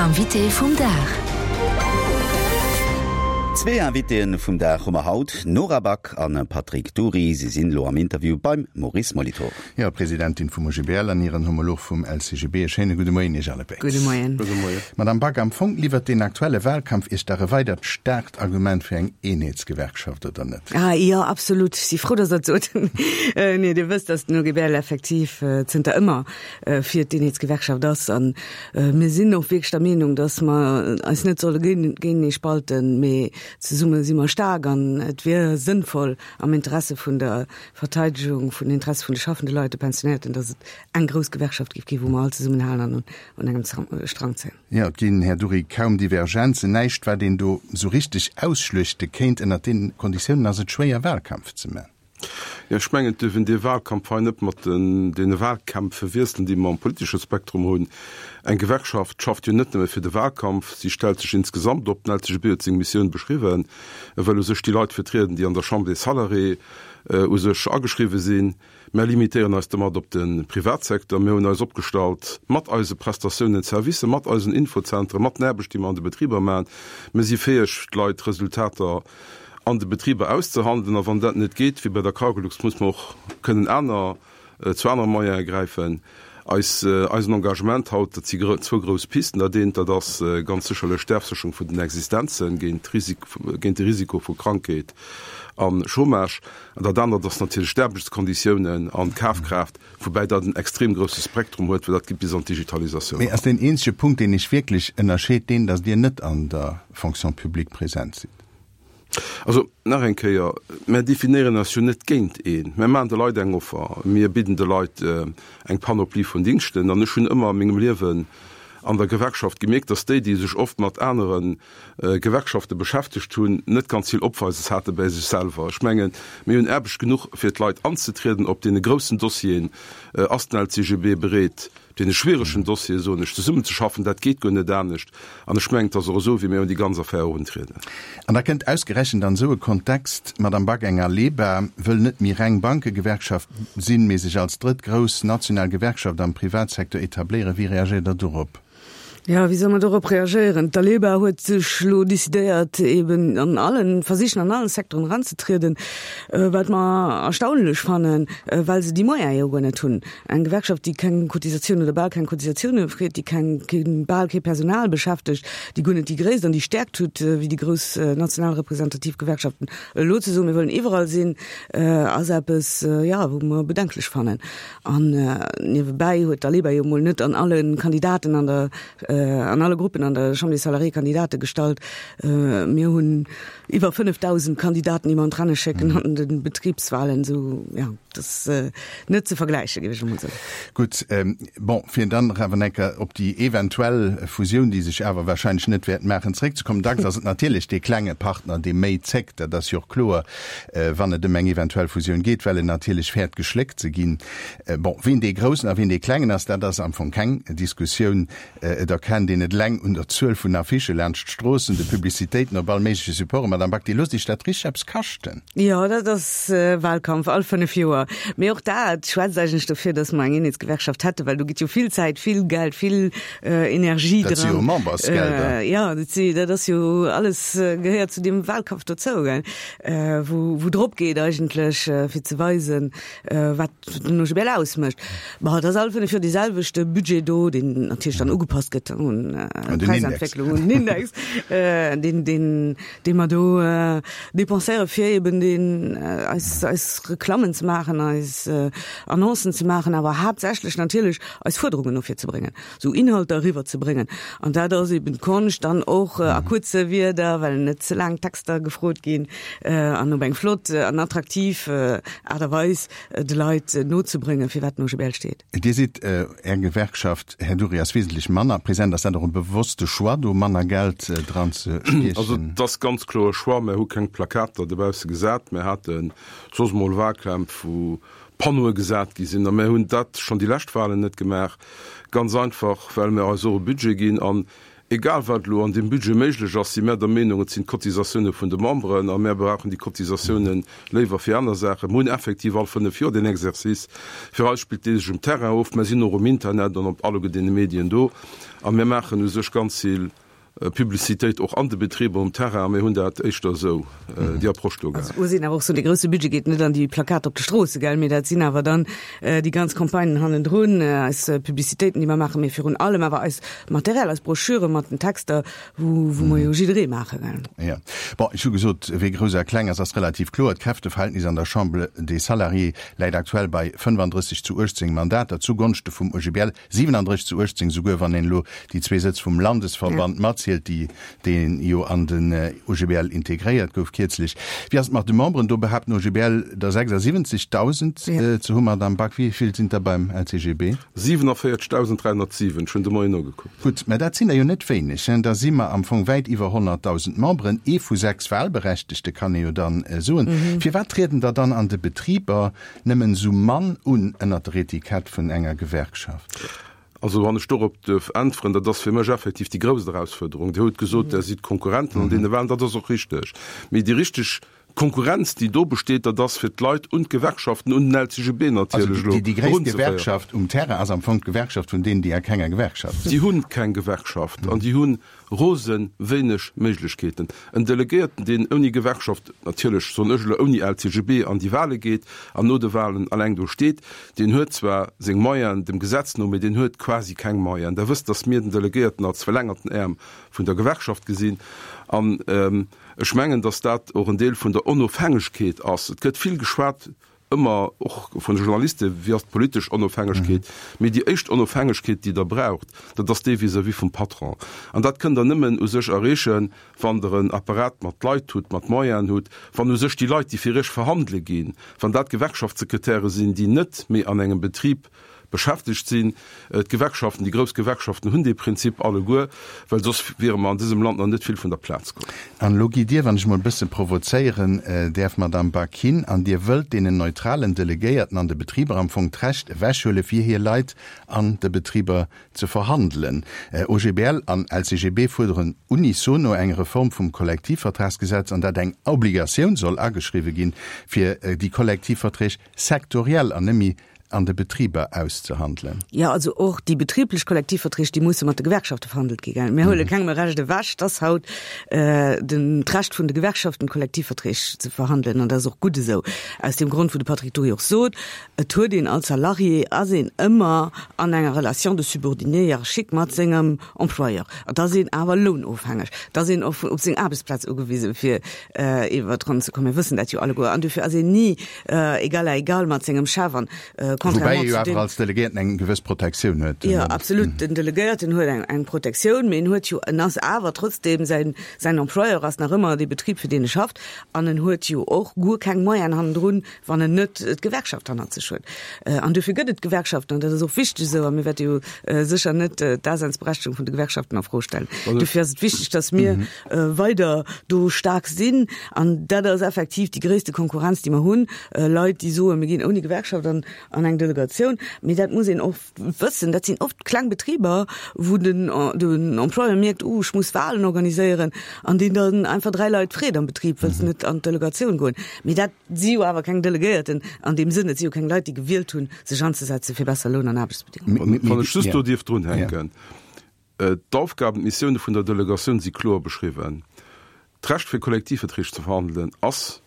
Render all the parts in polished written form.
Invité vum Dag. Zwee Invitéen vum Dag hu mer haut, Nora Back an Patrick Dury. Si sinn elo am Interview beim Maurice Molitor. Jo, Presidentin vum OGBL an hiren Homolog vum LCGB. E schéine gudde Moien Iech allebéid. Gudde Moien. Gudde Moien. Madame Back, am Fong liwwert deen aktuelle Wahlkampf Iech dach e weidert staarkt Argument fir eng Eenheetsgewerkschaft, oder net? Ah jo, absolut. Ech si frou, dass Der et sot. Nee, Dir wësst, dass den OGBL effektiv zënter ëmmer fir d'Eenheetsgewerkschaft ass. A mir sinn och wierklech der Meenung, dass mer eis net solle géintenee spalten, mee zesumme si mer staark an et wier sënnvoll am Interesse vun der Verteidegung vun den Interesse vun de schaffende Leit, de Pensionnéierten, dass et eng grouss Gewerkschaft géif ginn, wou mer all zesummenhalen an un engem Strang zéien. Jo, et ginn, Här Dury, kaum Divergenzen, näischt wat een do esou richteg ausschluechte kéint. Ënnert deenen Konditiounen ass et schwéier Wahlkampf ze man. Jo, ech mengen, et duerf een dee Wahlkampf hei net mat deene Wahlkämpf verwiesselen, déi mer am politesche Spektrum hunn. Eng Gewerkschaft schafft jo net nëmme fir de Wahlkampf, si stellt sech insgesamt op. Den LCGB huet seng Missioun beschriwwen, e wëll u sech déi Leit vertrieden, déi an der Chambre des Salariés u sech ageschriwwe sinn. Mär limitéieren eis domat op de Privatsecteur. Mir hunn eis opgestallt mat eise Prestatiounen, Servicer, mat eisen Infozentren, mat den Aarbecht, déi mer an de Betriber maachen. Mir si fäeg, d'Leit Resultater an de Betriber auszehandelen. A wann dat net geet, wéi bei der Cargolux, muss mer och kënnen aner, zu anere Moyene gräifen. Eis, eisen Engagement haut, dat si zwou grouss Pisten. Dat eent, dat ass ganz sécherlech d'Afsécherung vun den Existenzen géint d'Risik, géint de Risiko vu Krankheet a Chômage. An dat anert ass natierlech d'Aarbechtskonditiounen an d'Kafkraaft, woubäi dat en extrem grousse Spektrum huet, well dat geet bis an d'Digitalisatioun Mee eran. ass deen eenzege Punkt, deen Iech wierklech ënnerscheet, deen, datt Dir net an der Fonction publique present sidd? Also, nach eng Kéier, Mär definéieren eis jo net géint een. Mär maachen de Leit eng Offer. Mir bidden de Leit eng Panoplie vun Dingschten. An ech hunn ëmmer a mengem Liewen an der Gewerkschaft gemierkt, dass déi, déi sech oft mat anere Gewerkschafte beschäftegt hunn, net ganz vill Opweises hate bäi sech selwer. Ech mengen, mir hunn Aarbecht genuch, fir d'Leit anzetrieden. Op deene groussen Dossieren ass den LCGB bereet, Op deene schwieregen Dossiere, soen ech, zesummenzeschaffen, dat geet guer net anescht. An ech mengen, et ass och esou, wéi mir un déi ganz Affär eruntrieden. An da kënnt ausgerechent an esou e Kontext d'Madame Back, eng Aleba wëll net méi reng Bankegewerkschaft sinn, mee sech als drëtt grouss national Gewerkschaft am Privatsecteur etabléieren. Wéi reagéiert Der dorop? Jo, wéi soll mer dorop reagéieren? D'Aleba huet sech elo decidéiert, eben an allen, versichen an allen Secteuren eranzetrieden, wat mer erstaunlech fannen, well se déi Moyene jo guer net hunn. Eng Gewerkschaft, déi keng Cotisatioun oder bal keng Cotisatioune freet, déi keng, keen, bal kee Personal beschäftegt, déi guer net déi Gréisst an déi Stäerkt huet wéi déi grouss national representativ Gewerkschaften, elo ze soen, mir wëllen iwwerall sinn, ass eppes, jo, wou mer bedenklech fannen. An niewebäi huet d'Aleba jo mol net an alle Kandidaten an der, an alle Gruppen an der Chambre des Salariés Kandidate gestallt. Mir hunn iwwer 5.000 Kandidaten, déi mer an d'Renne schécken an de Betribswahlen. Esou, jo, dat ass net ze vergläichen, géif ech emol soen. Gutt, bon, fir dann nach awer eng Kéier op déi eventuell Fusioun, déi sech awer wahrscheinlech net wäert maachen, zeréckzekommen. Dacks ass et natierlech dee klenge Partner, dee méi zéckt, dat ass jo och kloer. wann et ëm eng eventuell Fusioun geet, well en natierlech fäert geschléckt ze ginn. Bon, ween dee Groussen a ween dee Klengen ass, dat ass am Fong keng Diskussioun. Et erkennt een et eleng un der Zuel vun Affichë laanscht d'Stroossen, de Publicitéiten op all méigleche Supporten. Madame Back, Dir loosst Iech dat richteg eppes kaschten. Jo, dat ass Wahlkampf all 5 Joer. Mee och dat schwätzt eigentlech dofir, datt mer eng Eenheetsgewerkschaft hätten, well do geet jo vill Zäit, vill Geld, vill Energie dran. Dat si jo Membersgelder. Jo, dat si, dat ass jo alles, gehéiert zu deem Wahlkampf dozou, gell. Wou wou drop geet eigentlech fir ze weisen, wat den OGBL ausmécht. Bon, et ass all 5 Joer dee selwechte Budget do, deen natierlech dann ugepasst gëtt un d'Präisentwécklung, un den Index, deen deen dee mer do dépenséiere fir eben deen eis eis Reklammen ze maachen, eis Annoncen ze maachen, awer haaptsächlech natierlech eis Fuerderungen no vir ze bréngen. sou Inhalter eriwwer ze bréngen. An dat ass eben d'Konscht dann och a kuerze Wierder, well net ze laang Texter gefrot ginn, an op eng flott an attraktiv Aart a Weis de Leit nozebréngen, firwat den OGBL steet. Dir sidd, Är Gewerkschaft, Här Dury, ass wesentlech manner present. Ass dat och e bewosste Choix, do manner Geld dran ze stiechen? Also et ass ganz kloer e Choix. Mär hu keng Plakater dobausse gesat. Mär hate soss mol Wahlkämpf, wou Panneaue gesat gi sinn. A mär hunn dat schonn déi lescht Wahlen net gemaach, ganz einfach, well mir eis och e Budget ginn. An Egal wat elo an deem Budget méiglech ass, si mär der Meenung, et sinn d'Cotisatioune vun de Memberen a mär brauchen déi Cotisatioune léiwer fir aner Saachen. Mir hunn effektiv all 5 Joer deen Exercice. Fir eis spillt dee sech um Terrain of. Mär sinn och um Internet an op alleguer deene Medien do a mär maachen u sech ganz vill Publicitéit och an de Betriber um Terrain a mir hunn dat éischter esou, déi Approche do gehat. Also muss een awer och soen, dee grousse Budget geet net an déi Plakater op de Stroosse, gell, mee dat sinn awer dann déi ganz Campagnen hannendrun, eis Publicitéiten, déi mer maachen, mee virun allem awer eis Material, eis Broschüre mat den Texter, wou wou mer jo jidderee maache, gell. Jo. Bon, ech hu gesot, wee grouss a kleng ass, ass relativ kloer. D'Kräfteverhältnis an der Chambre des Salariés läit aktuell bei 35 zu 18 Mandater zugonschte vum OGBL. 37 zu 18, souguer wann een elo déi zwee Sëtz vum Landesverband matzielt, déi dee jo an den OGBL integréiert gouf kierzlech. Wéi ass et mat de Memberen? Do behaapt den OGBL der 76.000 ze hunn. Madamm Back, wéi vill sinn der beim LCGB? 47.307, ech hunn de Moien nogekuckt. Gutt, mä dat sinn der jo net wéineg. Da si mer am Fong wäit iwwer 100.000 Memberen, ee vu sechs Wahlberechtegte kann ee jo dann soen. Firwat trieden der dann an de Betriber Nëmmen esou mann un ënnert der Etikett vun enger Gewerkschaft. Also wann ech dorop duerf äntweren, dat ass fir mech effektiv déi grousst Erausfuerderung. Dir hutt gesot, Der sidd Konkurrenten an deene Wahlen, dat ass och richteg. Mee déi richteg Konkurrenz, déi do besteet, dat ass fir d'Leit un d'Gewerkschaften, un den LCGB natierlech elo, Also déi gréisst Gewerkschaft um Terrain ass am Fong d'Gewerkschaft vun deenen, déi a kenger Gewerkschaft sinn. Déi hunn keng Gewerkschaft an déi hunn Rose wéineg Méiglechkeeten. En Delegéierten, deen ouni Gewerkschaft, natierlech soen ech elo ouni LCGB, an déi Wahle geet an no de Wahlen alleng do steet, deen huet zwar seng Moyenen dem Gesetz no, mee deen huet quasi keng Moyenen. Der wësst, datt mir den Delegéierten als verlängerten Äerm vun der Gewerkschaft gesinn. An ech mengen, datt dat och en Deel vun der Onofhängegkeet ass. Et gëtt vill geschwat ëmmer och vun de Journalisten, wéi ass d'politesch Onofhängegkeet, mee déi éischt Onofhängegkeet, déi Der braucht, dat ass déi vis-à-vis vum Patron. An dat kënnt Der nëmmen u sech erreechen, wann Der en Apparat mat Leit hutt, mat Moyenen hutt, wann u sech déi Leit, déi fir Iech verhandele ginn, wann dat Gewerkschaftssekretäre sinn, déi net méi an engem Betrib beschäftegt sinn. D'Gewerkschaften, déi grouss Gewerkschaften hunn dee Prinzip alleguer, well soss wiere mer an dësem Land nach net vill vun der Plaz komm. An elo gitt Dir, wann ech emol e bësse provozéieren däerf, Madamm Back, hin an Dir wëllt deenen neutralen Delegéierten an de Betriber am Fong d'Recht ewechhuele fir hir Leit an de Betriber ze verhandelen. OGBL an LCGB fuerderen unisono eng Reform vum Kollektivvertragsgesetz, an dat eng Obligatioun soll ageschriwwe ginn, fir déi Kollektivverträg sektoriell an net méi an de Betriber auszehandelen. Jo, also och déi betriblech Kollektivverträg, déi musse mat de Gewerkschafte verhandelt gi gell. Mir huele kengem e Recht ewech. Et ass haut den d'Recht vun de Gewerkschaften, Kollektivverträg ze verhandelen an dat ass och gutt esou. Aus deem Grond, wou de Patrick Dury och sot, et huet een als Salarié, ass een ëmmer an enger Relation de subordinée hiérarchique mat sengem Employeur. Et ass een awer lounofhängeg. Et ass een och op seng Aarbechtsplaz ugewisen, fir iwwer d'Ronn ze kommen. Mir wëssen dat jo alleguer. An dofir ass een ni égal à égal mat sengem Chef. An contrairement zu deem. Woubäi ee jo awer als Delegéierten eng gewëss Protektioun huet. Jo, absolut. Den Delegéierten huet eng, eng Protektioun, mee en huet jo, en ass awer trotzdem, säin, säin Employeur ass nach ëmmer dee Betrib, fir deen e schafft. An en huet jo och guer keng Moyenen hannendrun, wann en net d'Gewerkschaft hannert sech huet. An dofir gëtt et d'Gewerkschaften, an dat ass och wichteg esou, a mir wäerte jo sécher net d'Daseinsberechtegung vun de Gewerkschaften a Fro stellen. Dofir ass et wichteg, datt mir weider do staark sinn. An dat ass effektiv déi gréisste Konkurrenz, déi mer hunn, Leit, déi soen, mir ginn ouni Gewerkschaft an eng Delegatioun. Mee dat muss een och wëssen, dat sinn oft kleng Betriber, wou den den Employeur mierkt, oh ech muss Wahlen organiséieren, an deen dann einfach 3 Leit freet am Betrib, wëlls de net an d'Delegatioun goen? Mee dat si jo awer keng Delegéierten an deem Sënn, et si jo keng Leit, déi gewielt hunn, sech anzesetze fir besser Loun an Aarbechtsbedingungen. Wann ech just do dierf drunhänken, D'Aufgaben, d'Missioune vun der Delegatioun si kloer beschriwwen. D'Recht fir Kollektivverträg ze verhandelen ass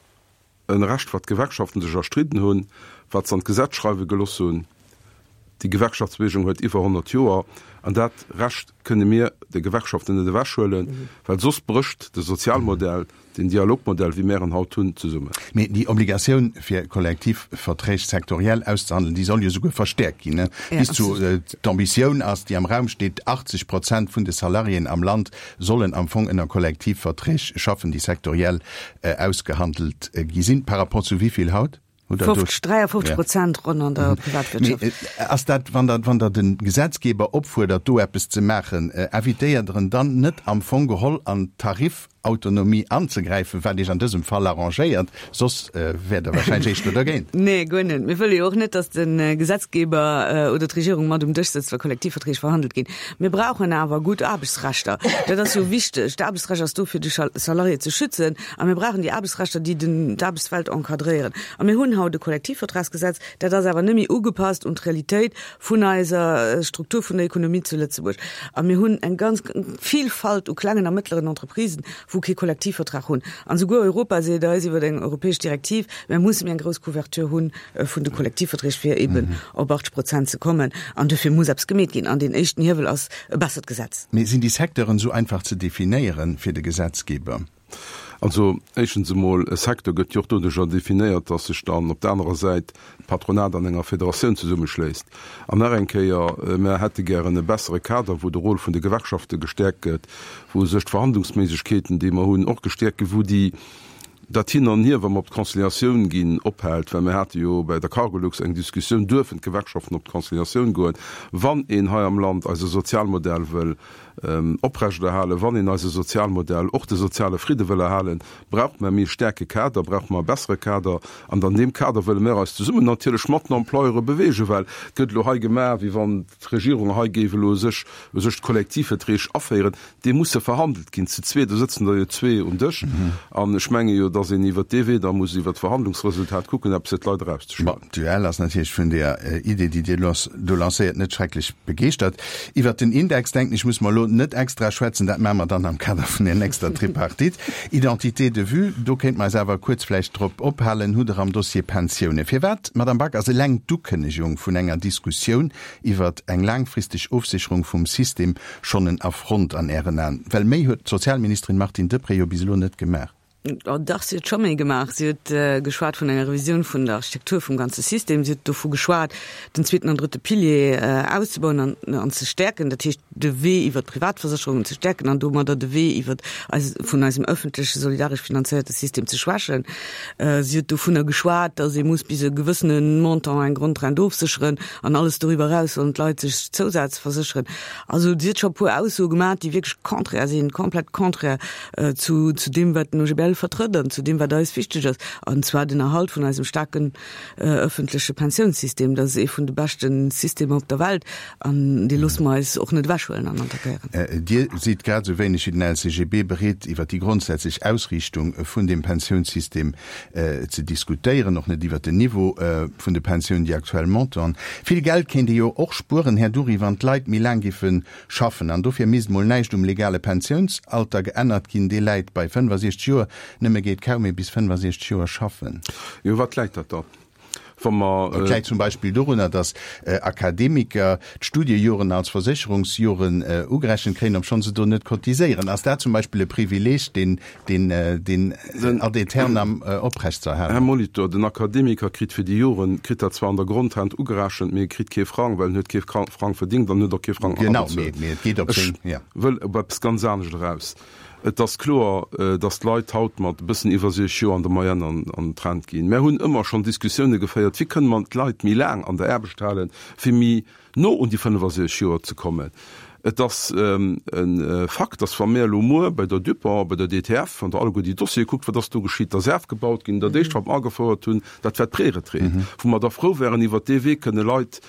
E Recht, wat d'Gewerkschaften sech erstridden hunn, wat se an d'Gesetz schreiwe geloss hunn. Déi Gewerkschaftsbewegung huet iwwer 100 Joer, an dat Recht kënne mir de Gewerkschaften net ewechhuelen, well soss brécht de Sozialmodell, den Dialogmodell, wéi mär en haut hunn, zesummen. Mee déi Obligatioun, fir Kollektivverträg sektoriell auszehandelen, déi soll jo souguer verstäerkt ginn, bis zu, d'Ambitioun ass, déi am Raum steet, 80 Prozent vun de Salariéen am Land sollen am Fong ënner Kollektivverträg schaffen, déi sektoriell ausgehandelt gi sinn. Par rapport zu wéi vill haut? Hutt Der do 50, 53 Prozent ronn an der Privatwirtschaft. Mee ass dat, wann Der, wann Der de Gesetzgeber opfuerdert, do eppes ze maachen, invitéiert Der en dann net am Fong geholl an d'Tarif? Autonomie anzegräifen, wat Iech an dësem Fall arrangéiert, soss wäert Der wahrscheinlech éischter dergéint. Nee, guer net. Mir wëlle jo och net, datt de Gesetzgeber oder d'Regierung mat um Dësch sëtzt, wa Kollektivverträg verhandelt ginn. Mir brauchen awer gutt Aarbechtsrechter. Dat ass jo wichteg. D'Aarbechtsrecht ass do, fir de Salarié ze schützen. A mir brauchen déi Aarbechtsrechter, déi den d'Aarbechtswelt encadréieren. A mir hunn haut e Kollektivvertragsgesetz, dat ass awer net méi ugepasst un d'Realitéit vun eiser Struktur vun der Ekonomie zu Lëtzebuerg. A mir hunn eng ganz Vielfalt u klengen a mëttleren Entreprisen, wou kee Kollektivvertrag hunn. An esouguer Europa seet eis iwwer eng europäesch Direktiv, mir musse méi eng grouss Couverture hu vun de Kollektivverträg, fir eeben op 80 Prozent ze kommen. An duerfir muss eppes gemeet ginn. An deen éischten Hiewel ass e bessert Gesetz. Mee sinn déi Secteuren esou einfach ze definéieren fir de Gesetzgeber? Also éischtens emol, e Secteur gëtt jo och doduercher definéiert, dass sech dann op der anerer Säit d'Patronat an enger Federatioun zesummeschléisst. An nach eng Kéier, Mer hätte gären e bessere Kader, wou de Rôle vun de Gewerkschafte gestäerkt gëtt, wou u sech d'Verhandlungsméiglechkeeten, déi mer hunn, och gestäerkt ginn, wou déi, dat Hin an Hier, wa mer op d'Conciliatioun ginn, ophält. Well mir hate jo bei der Cargolux eng Diskussioun, Duerfen d'Gewerkschaften op d'Conciliatioun goen, wann een hei am Land eise Sozialmodell wëll oprechterhalen, wann een eise Sozialmodell, och de soziale Fridde wëll erhalen, brauche mer méi staarke Kader, brauche mer e bessere Kader. An an deem Kader wëlle mer eis zesummen natierlech mat den Employeure beweegen, well et gëtt elo hei gemaach, wéi wann d'Regierung hei géif elo sech u sech d'Kollektivverträg aféieren. Déi musse verhandelt ginn zu zwee, do sëtzen der jo zwee um Dësch. An ech menge jo, datt een iwwert dee Wee da muss iwwert d'Verhandlungsresultat kucken, eppes fir d'Leit erauszeschloen. Bon, d'UEL ass natierlech vun där Idee, déi Dir do lancéiert, net schrecklech begeeschtert. Iwwert den Index, denken ech, muss mer elo net extra schwätzen, dat maache mer dann am Kader vun der nächster Tripartite. Identité de vue, do kéinte mer eis awer kuerz vläicht drop ophalen, hutt Der am Dossier Pensiounen. Firwat, Madame Back, ass eleng d'Ukënnegung vun enger Diskussioun iwwert eng laangfristeg Ofsécherung vum System schonn en Affront an Ären Aen? Well méi huet d'Sozialministerin Martine Deprez jo bis elo net gemaach. Oh dach, si huet scho méi gemaach. Si huet geschwat vun enger Revisioun vun der Architektur vum ganze System. Si huet dovu geschwat, den zweeten an drëtte Pilier auszebauen an an ze stäerken, dat heescht de Wee iwwer d'Privatversécherungen ze stäerken an domadder de Wee iwwer eis vun eisem ëffentleche solidaresch finanzéierte System ze schwächen. Si huet dovunner geschwat, datt ee muss bis e gewëssene Montant eng Grondrent ofsécheren an alles doriwwer eraus sollen d'Leit sech zousazversécheren. Also si huet scho e puer Aussoe gemaach, déi wierklech contraire sinn, komplett contraire zu zu deem, wat den OGBL vertrëtt an zu deem, wat eis wichteg ass, an zwar den Erhalt vun eisem staarken ëffentleche Pensiounssystem. Dat ass ee vun de beschte Systemer op der Welt an dee loosse mer eis och net ewechhuelen an attackéieren. Dir sidd grad esou wéineg wéi den LCGB bereet, iwwer déi grondsätzlech Ausriichtung vun deem Pensiounssystem ze diskutéieren, och net iwwer den Niveau vun de Pensiounen, déi aktuell Montanten. Vill Geld kéint ee jo och spueren, Här Dury, wann d'Leit méi laang géife schaffen. An dofir misst mol näischt um legale Pensiounsalter geännert ginn, dee läit bei 65 Joer. Nëmme geet kaum ee bis 65 Joer schaffen. Jo, wat läit dat dann, wa mer. Et läit zum Beispill dorunner, datt Akademiker d'Studiejoren als Versécherungsjoren ugerechent kréien, obschonn se do net cotiséieren. Ass dat zum Beispill e Privileeg, deen deen deen ad aeternam oprecht ze erhalen? Här Molitor, den Akademiker kritt fir déi Joren, kritt dat zwar an der Grondrent ugerechent, mee e kritt kee Frang, well en huet kee Frang verdingt an huet och kee Frang abezuelt. Genau, mee et geet op seng, ja. Ech wëll op eppes ganz anescht eraus. Et ass kloer, datt d'Leit haut mat e bëssen iwwer 60 Joer an der Moyenne an d'Rent ginn. Mär hunn ëmmer schonn Diskussioune geféiert, wéi kënne mer d'Leit méi laang an der Aarbecht halen, fir méi no un déi 65 Joer ze kommen. Et ass e Fakt, datt wa mir elo muer bei der Dupont, bei der DTF, wann Der alleguer déi Dossiere kuckt, wat ass do geschitt, da ass afgebaut ginn. Dat éischt, wat mer agefouert hunn, dat war d'Preretraite, wou mer da frou wären, iwwert dee Wee kënne Leit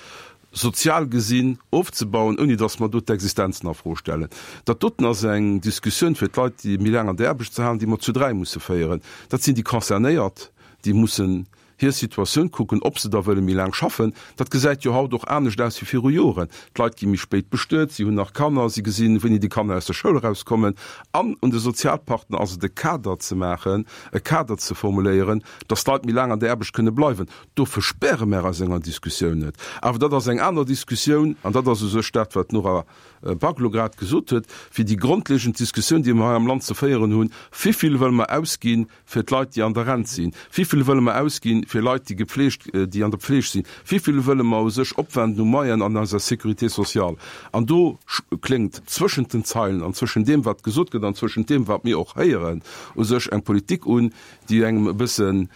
sozial gesinn ofzebauen, ouni datt mer do d'Existenzen a Fro stellen. Dat doten ass eng Diskussioun, fir d'Leit, déi méi laang an der Aarbecht ze halen, déi mer zu dräi musse féieren. Dat sinn déi Concernéiert, déi mussen hir Situatioun kucken, ob se da wëlle méi laang schaffen. Dat gesäit jo haut och anescht aus wéi viru Joren. D'Leit gi méi spéit bestuet, si hunn nach Kanner, si gesinn, wéini déi Kanner aus der Schoul erauskommen. An un de Sozialpartner ass et, e Kader ze maachen, e Kader ze formuléieren, datt d'Leit méi laang an der Aarbecht kënne bleiwen. Do verspäre mär eis enger Diskussioun net. Awer dat ass eng aner Diskussioun, an dat ass u sech dat, wat d'Nora Back elo grad gesot huet, wéi déi grondlegend Diskussioun, déi mer hei am Land ze féieren hunn, Wivill wëlle mer ausgi fir d'Leit, déi an der Rent sinn? Wivill wëlle mer ausgi fir Leit, déi gepflegt, déi an der Pfleg sinn? Wivill wëlle mer u sech opwenden u Moyen an eiser Sécurité sociale? An do kléngt zwëschent den Zeilen an zwëschent deem, wat gesot gëtt, an zwëschent deem, wat mir och héieren, u sech eng Politik un, déi engem e bëssen.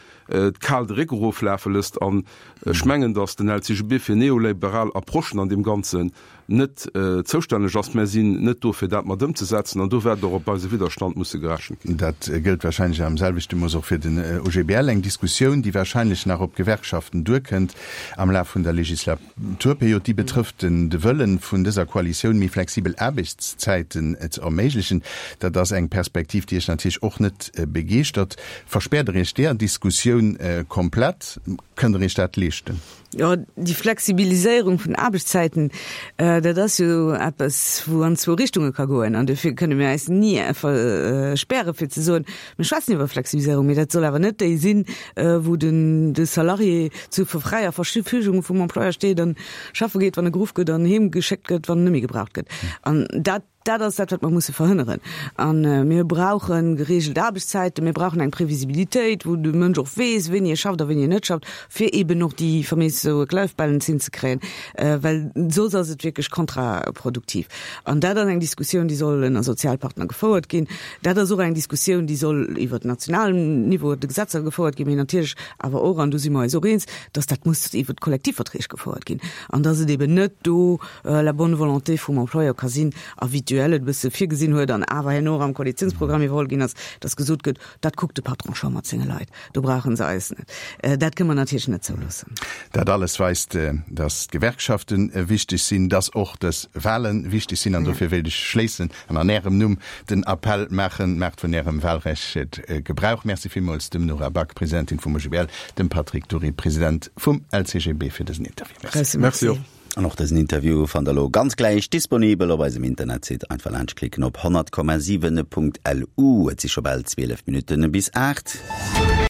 kal de Réck eroflafe lësst. An ech mengen, datt den LCGB fir neoliberal Approchen an deem Ganzen net zoustänneg ass. Mär sinn net do, fir dat mat ëmzesetzen, an do wäert och op eise Widderstand musse gerechent ginn. Dat gëllt wahrscheinlech am selwechte Mooss och fir den OGBL. Eng Diskussioun, déi wahrscheinlech nach op d'Gewerkschaften duerkënnt am Laf vun der Legislaturperiod, déi betrëfft de Wëllen vun dëser Koalitioun, méi flexibel Aarbechtszäiten ze erméiglechen. Dat ass eng Perspektiv, déi Iech natierlech och net begeeschtert. Verspäert Der Iech deeër Diskussioun komplett? Kënnt Der Iech dat leeschten? Jo, déi Flexibiliséierung vun Aarbechtszäiten, dat ass jo eppes, wou an zwou Richtunge ka goen. An dofir kënne mir eis ni verspäre fir ze soen, mir schwätzen iwwer Flexibiliséierung, mee dat soll awer net déi sinn, wou den de Salarié zu fräier Verfügung vum Employeur steet an schaffe geet, wann e geruff gëtt an heem geschéckt gëtt, wann en net méi gebraucht gëtt. An dat Dat ass dat, wat mer musse verhënneren. A mir brauche geregelt Aarbechtszäiten, mir brauchen eng Previsibilitéit, wou de Mënsch och weess, wéini e schafft a wéini en net schafft, fir eeben och déi faméis Work-Life-Balance hinzekréien, well soss ass et wierklech kontraproduktiv. An dat ass eng Diskussioun, déi soll ënner Sozialpartner gefouert ginn. Dat ass och eng Diskussioun, déi soll iwwert nationalem Niveau, de Gesetzer gefouert ginn, mee natierlech awer och, an do si mer eis och eens, dass dat muss iwwert d'Kollektivverträg gefouert ginn an dass et eeben net do la bonne volonté vum Employeur ka sinn a wéi d'UEL et e bësse virgesinn huet an awer herno och am Koalitionsprogramm iwwerholl ginn ass, dass gesot gëtt, dat kuckt de Patron scho mat senge Leit, do brauche se eis net. Dat kënne mer natierlech net zouloossen. Dat alles weist, dass d'Gewerkschafte wichteg sinn, dass och dës Wahle wichteg sinn. An dofir wéilt ech schléissen an an Ärem Numm den Appell maachen, Maacht vun Ärem Wahlrecht Gebrauch. Merci villmools dem Nora Back, Presidentin vum OGBL, dem Patrick Dury, President vum LCGB, fir dësen Interview. Merci. Merci och. An och dësen Interview fannt der lo ganz gläich disponibel op eisem Internetsite. Einfach laanscht klicken op 100,7.lu. Et si scho bal 12 Minutten bis 8.